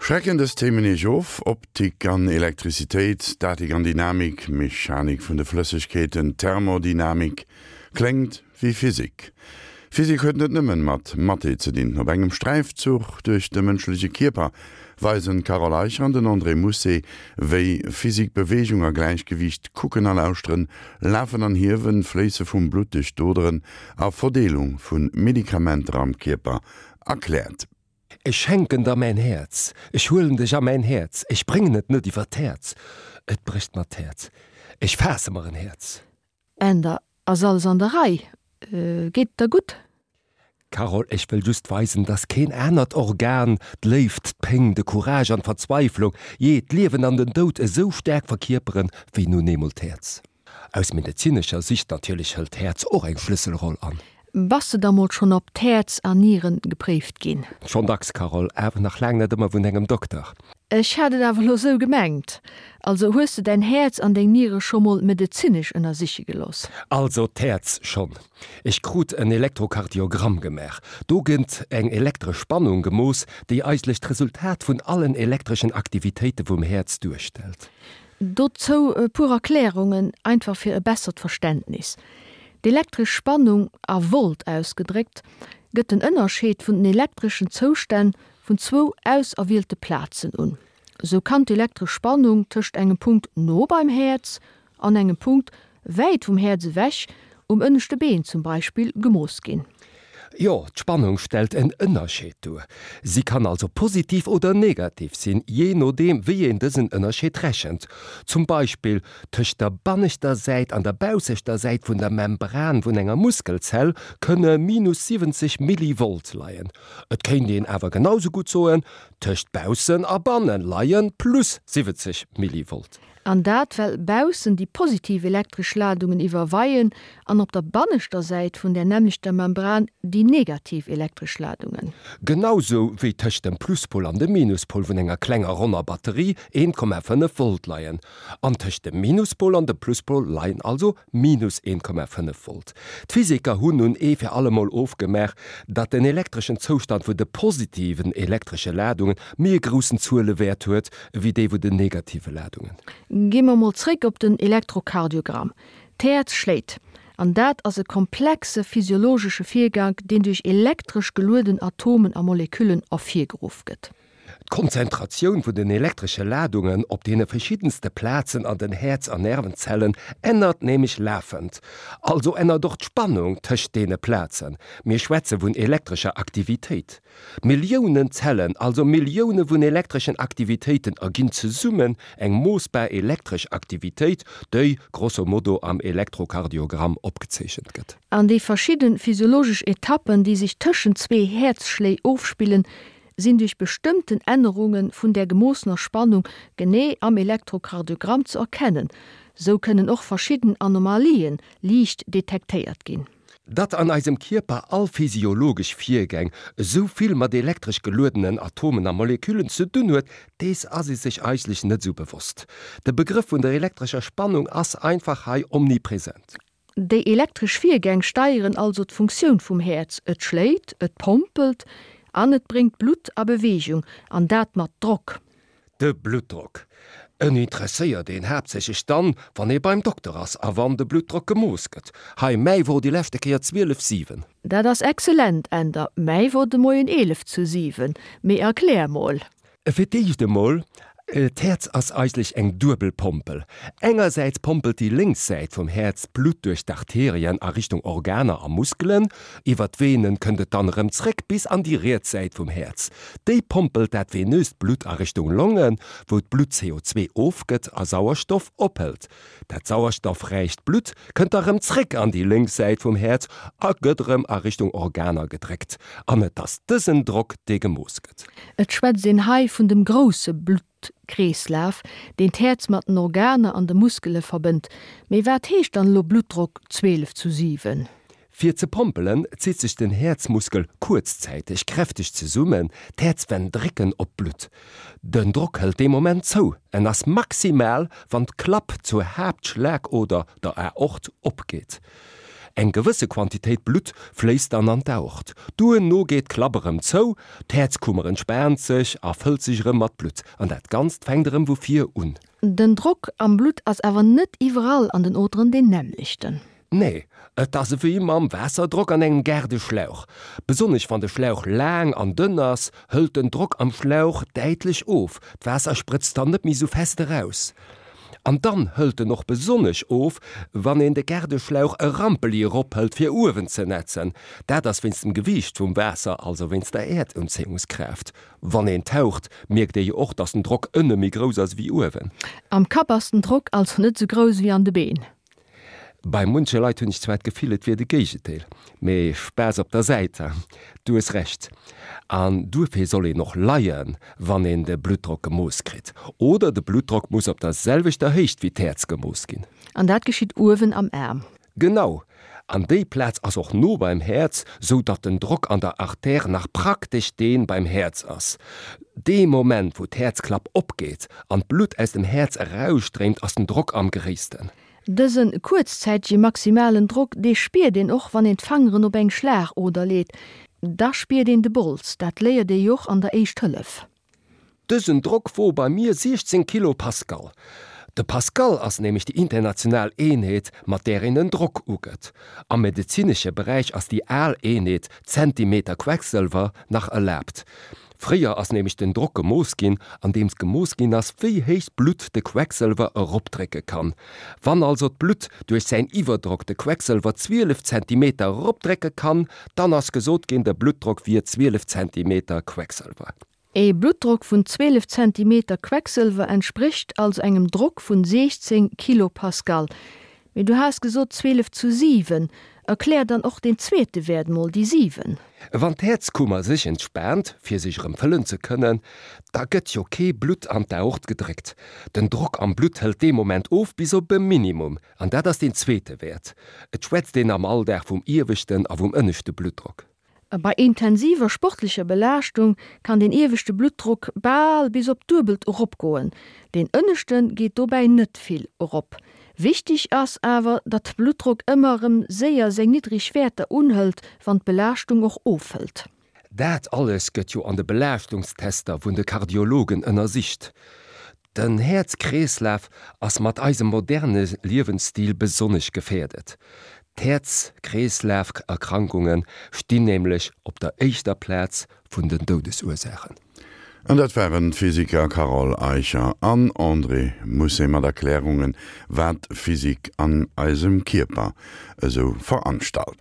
Schrecken dës Themen Iech of? Optik an Elektrizitéit, Statik an Dynamik, Mechanik vun de Flëssegkeeten, Thermodynamik, kléngt wéi Physik. Physik huet net nëmmen mat Mathé ze dinn. Op engem Sträifzuch duerch de mënschleche Kierper weisen d'Carole Eicher an den André Mousset, wéi Physik Beweegung a Gläichgewiicht, Kucken a Lauschteren, Lafen an Hiewen, Fléisse vum Blutt duerch d'Oderen a Verdeelung vu Medikamenter am Kierper erkläert. Ech schenken der mäin Häerz, ech huelen dech a mäin Häerz, ech bréngen et net iwwer d'Häerz, et brécht mer d'Häerz, ech faasse mer en Häerz. Änder, Ass alles an der Rei? Geet et der gutt? Carole, Ech wëll just weisen, dass keen anert Organ d'Léift, d'Péng, de Courage an d'Verzweiflung, jee, d'Liewen an den Doud esou staark verkierperen, wéi nun eemol d'Häerz. Aus medezinescher Sicht natierlech hëlt d'Häerz och eng Schlësselroll an. Bass de da mol schonn op d'Häerz an Nieren gepréift ginn? Schonn dacks, Carole, awer nach laang net ëmmer vun engem Dokter. Ech hat et awer elo sou gemengt. Also hues de däin Häerz an deng Niere scho mol medezinesch ënnersiche gelooss? Also d'Häerz schonn. Ech krut en Elektrokardiogramm gemaach. Do gëtt eng elektresch Spannung gemooss, déi eigentlech d'Resultat vun allen elektreschen Aktivitéite vum Häerz duerstellt. Dozou e puer Erklärungen, einfach fir e bessert Verständnis. D'elektresch Spannung, a Volt ausgedréckt, gëtt den Ënnerscheed vun den elektreschen Zoustänn vun zwou auserwielte Plazen un. Sou kann d'elektresch Spannung tëscht engem Punkt no beim Häerz an engem Punkt wäit vum Häerz ewech, um ënneschte Been zum Beispill, gemooss ginn. Jo, d'Spannung stellt en Ënnerscheed duer. Si kann also positiv oder negativ sinn, jee nodeem wéi een dësen Ënnerscheed rechent. Zum Beispill tëscht der banneschter Säit an der baussechter Säit vun der Membran vun enger Muskelzell kënne minus 70 Millivolt leien. Et kéint een awer genau sou gutt soen, tëscht baussen a banne leie plus 70 Millivolt. An dat well baussen déi positiv elektresch Ladungen iwwerweien an op der banneschter Säit vun där nämmlechter Membran déi negativ elektresch Ladungen. Genau sou wéi tëscht dem Pluspol an dem Minuspol vun enger klenger ronner Batterie 1,5 Volt leien. An tëscht dem Minuspol an dem Pluspol leien also minus 1,5 Volt. D'Physiker hunn nun ee fir allemol ofgemaach, datt den elektreschen Zoustand vun de positiven elektresche Ladungen méi e groussen Zuelewäert huet, ewéi dee vun den negative Ladungen. Gi mer mol zréck op den Elektrokardiogramm. D'Häerz schléit, an dat ass e komplexe physiologesche Virgank, deen duerch elektresch gelueden Atomen a Moleküllen ervirgeruff gëtt. D'Konzentratioun vun den elektresche Ladungen op deene verschiddenste Plazen an den Häerz an Nervenzellen ännert nämlech lafend. Also ännert och d'Spannung tëscht deene Plazen. Mir schwätze vun elektrescher Aktivitéit. Milliounen Zellen, also Millioune vun elektreschen Aktivitéiten erginn zesummen eng moossbar elektresch Aktivitéit, déi grosso modo am Elektrokardiogramm opgezeechent gëtt. An déi verschidde physiologesch Etappen, déi sech tëschent zwee Häerzschléi ofspillen, sinn duerch bestëmmten Ännerunge vun där gemoossener Spannung genee am Elektrokardiogramm ze erkennen. Sou kënnen och verschidden Anomalien liicht detektéiert ginn. Datt an eisem Kierper all physiologesch Virgäng esou vill mat elektresch geluedenen Atomen a Moleküllen ze dunn huet, dees ass ee sech eigentlech net esou bewosst. De Begrëff vun der elektrescher Spannung ass einfach hei omnipresent. Déi elektresch Virgäng steieren also d'Funktioun vum Häerz, et schléit, et pompelt an et bréngt d'Blutt a Beweegung, an dat mat Drock. De Bluttdrock. En interesséiert een haaptsächlech dann, wann ee beim Dokter ass a wann de Bluttdrock gemooss gëtt. Hei, mäi wor déi leschte Kéier 12, 7. Dat ass excellent, Änder. Mäi wor de Moien 11 zu 7. Mee erklär mol. Fir d'éischt emol, D'Häerz ass eigentlech eng duebel Pompel. Engersäits pompelt déi lénks Säit vum Häerz d'Blutt duerch d'Arterien a Richtung Organer a Muskelen. Iwwer d'Venen kënnt et dann erëm zréck bis an déi riets Säit vum Häerz. Déi pompelt dat venöst Blutt a Richtung Longen, wou d'Blutt CO2 ofgëtt a Sauerstoff ophëlt. Dat sauerstoffräicht Blutt kënnt da rëm zréck an déi lénks Säit vum Häerz a gëtt erëm a Richtung Organer gedréckt. An et ass dësen Drock, dee gemooss gëtt. Et schwätzt een hei vun dem grousse Bluttkreeslaf, deen d'Häerz mat den Organer an de Muskele verbënnt. Mee wat heescht dann elo Bluttdrock 12 zu 7? Fir ze pompelen, zitt sech den Häerzmuskel kuerzzäiteg kräfteg zesummen, d'Häerzwänn drécken op d'Blutt. Den Drock hëlt dee Moment zou, en ass maximal, wann d'Klapp zur Haaptschlagoder, der Aort, opgeet. Eng gewësse Quantitéit Blutt fléisst dann an d'Aort. Duerno geet d'Klapp erëm zou, d'Häerzkummer entspaant sech a fëllt sech erëm mat Blutt. An dat Ganzt fänkt erëm vu vir un. Den Drock am Blutt ass awer net iwwerall an den Oderen deen nämmlechten. Nee, et ass ewéi mam Waasserdrock an engem Gaardeschlauch. Besonnesch wann de Schlauch laang an dënn ass, hëlt den Drock am Schlauch däitlech of, d'Waasser sprëtzt dann net méi sou fest eraus. An dann hëlt en och besonnesch of, wann een de Gaardeschlauch e Rampeli erophëlt fir uewen ze nätzen. Dat ass wéinst dem Gewiicht vum Waasser, also wéinst der Äerdunzéiungskraaft. Wann een taucht, mierkt ee jo och, dass den Drock ënne méi grouss ass ewéi uewen. Am Kapp ass den Drock also net sou grouss ewéi an de Been. Bei munche Leit hunn ech zwar d'Gefill, et wier de Géigendeel, mee Spaass op der Säit, du hues Recht. An duerfir soll een och leien, wann een de Bluttdrock gemooss kritt. Oder de Bluttdrock muss op der selwechter Héicht wéi d'Häerz gemooss ginn. An dat geschitt uewen am Aarm. Genau! An déi Plaz ass och no beim Häerz, sou datt den Drock an der Artère nach praktesch dee beim Häerz ass. Dee Moment, wou d'Häerzklapp opgeet an d'Blutt aus dem Häerz erausstréimt, ass den Drock am gréissten. Dëse kuerzzäitege maximalen Drock, dee spiert een och, wann een d'Fangeren op eng Schlagoder leet. Da spiert een de Bols. Dat léiert ee jo och an der Éischt Hëllef. Dësen Drock wor bei mir 16 Kilopascal. De Pascal ass nämlech déi international Eenheet, mat där een den Drock ugëtt. Am medezinesche Beräich ass déi al Eenheet, Zentimeter Quecksëlwer, nach erlaabt. Fréier ass nämlech den Drock gemooss ginn, andeems gemooss ginn ass, wéi héich d'Blutt de Quecksëlwer eropdrécke kann. Wann also d'Blutt duerch säin Iwwerdrock de Quecksëlwer 12 Zentimeter eropdrécke kann, dann ass gesot ginn, de Bluttdrock wier 12 Zentimeter Quecksëlwer. Ee Bluttdrock vun 12 Zentimeter Quecksëlwer entsprécht also engem Drock vun 16 Kilopascal. Mee du has gesot 12 zu 7. Erklär dann och deen zweete Wäert mol, déi 7. Wann d'Häerzkummer sech entspaant, fir sech erëm fëllen ze kënnen, da gëtt jo kee Blutt an d'Aort gedréckt. Den Drock am Blutt hëlt dee Moment of bis op e Minimum, an dat ass deen zweete Wäert. Et schwätzt een am Alldag vum ieweschten a vum ënneschte Bluttdrock. Bei intensiver sportlecher Belaaschtung kann den ieweschte Bluttdrock bal bis op d'Duebelt eropgoen, deen ënneschte geet dobäi net vill erop. Wichteg ass awer, datt de Bluttdrock ëmmer erëm séier seng niddreg Wäerter unhëlt, wann d'Belaaschtung och ofhëlt. Dat alles gëtt jo an de Belaaschtungstester vun de Kardiologen ënnersicht. Den Häerz-Kreeslaf ass mat eisem moderne Liewensstil besonnesch gefäerdet. D'Häerz-Kreeslaf-Erkrankunge stinn nämlech op der éischter Plaz vun den Doudesursaachen. An dat waren d'Physiker Carole Eicher an André Mousset mat Erklärungen, wat Physik an eisem Kierper esou veranstalt.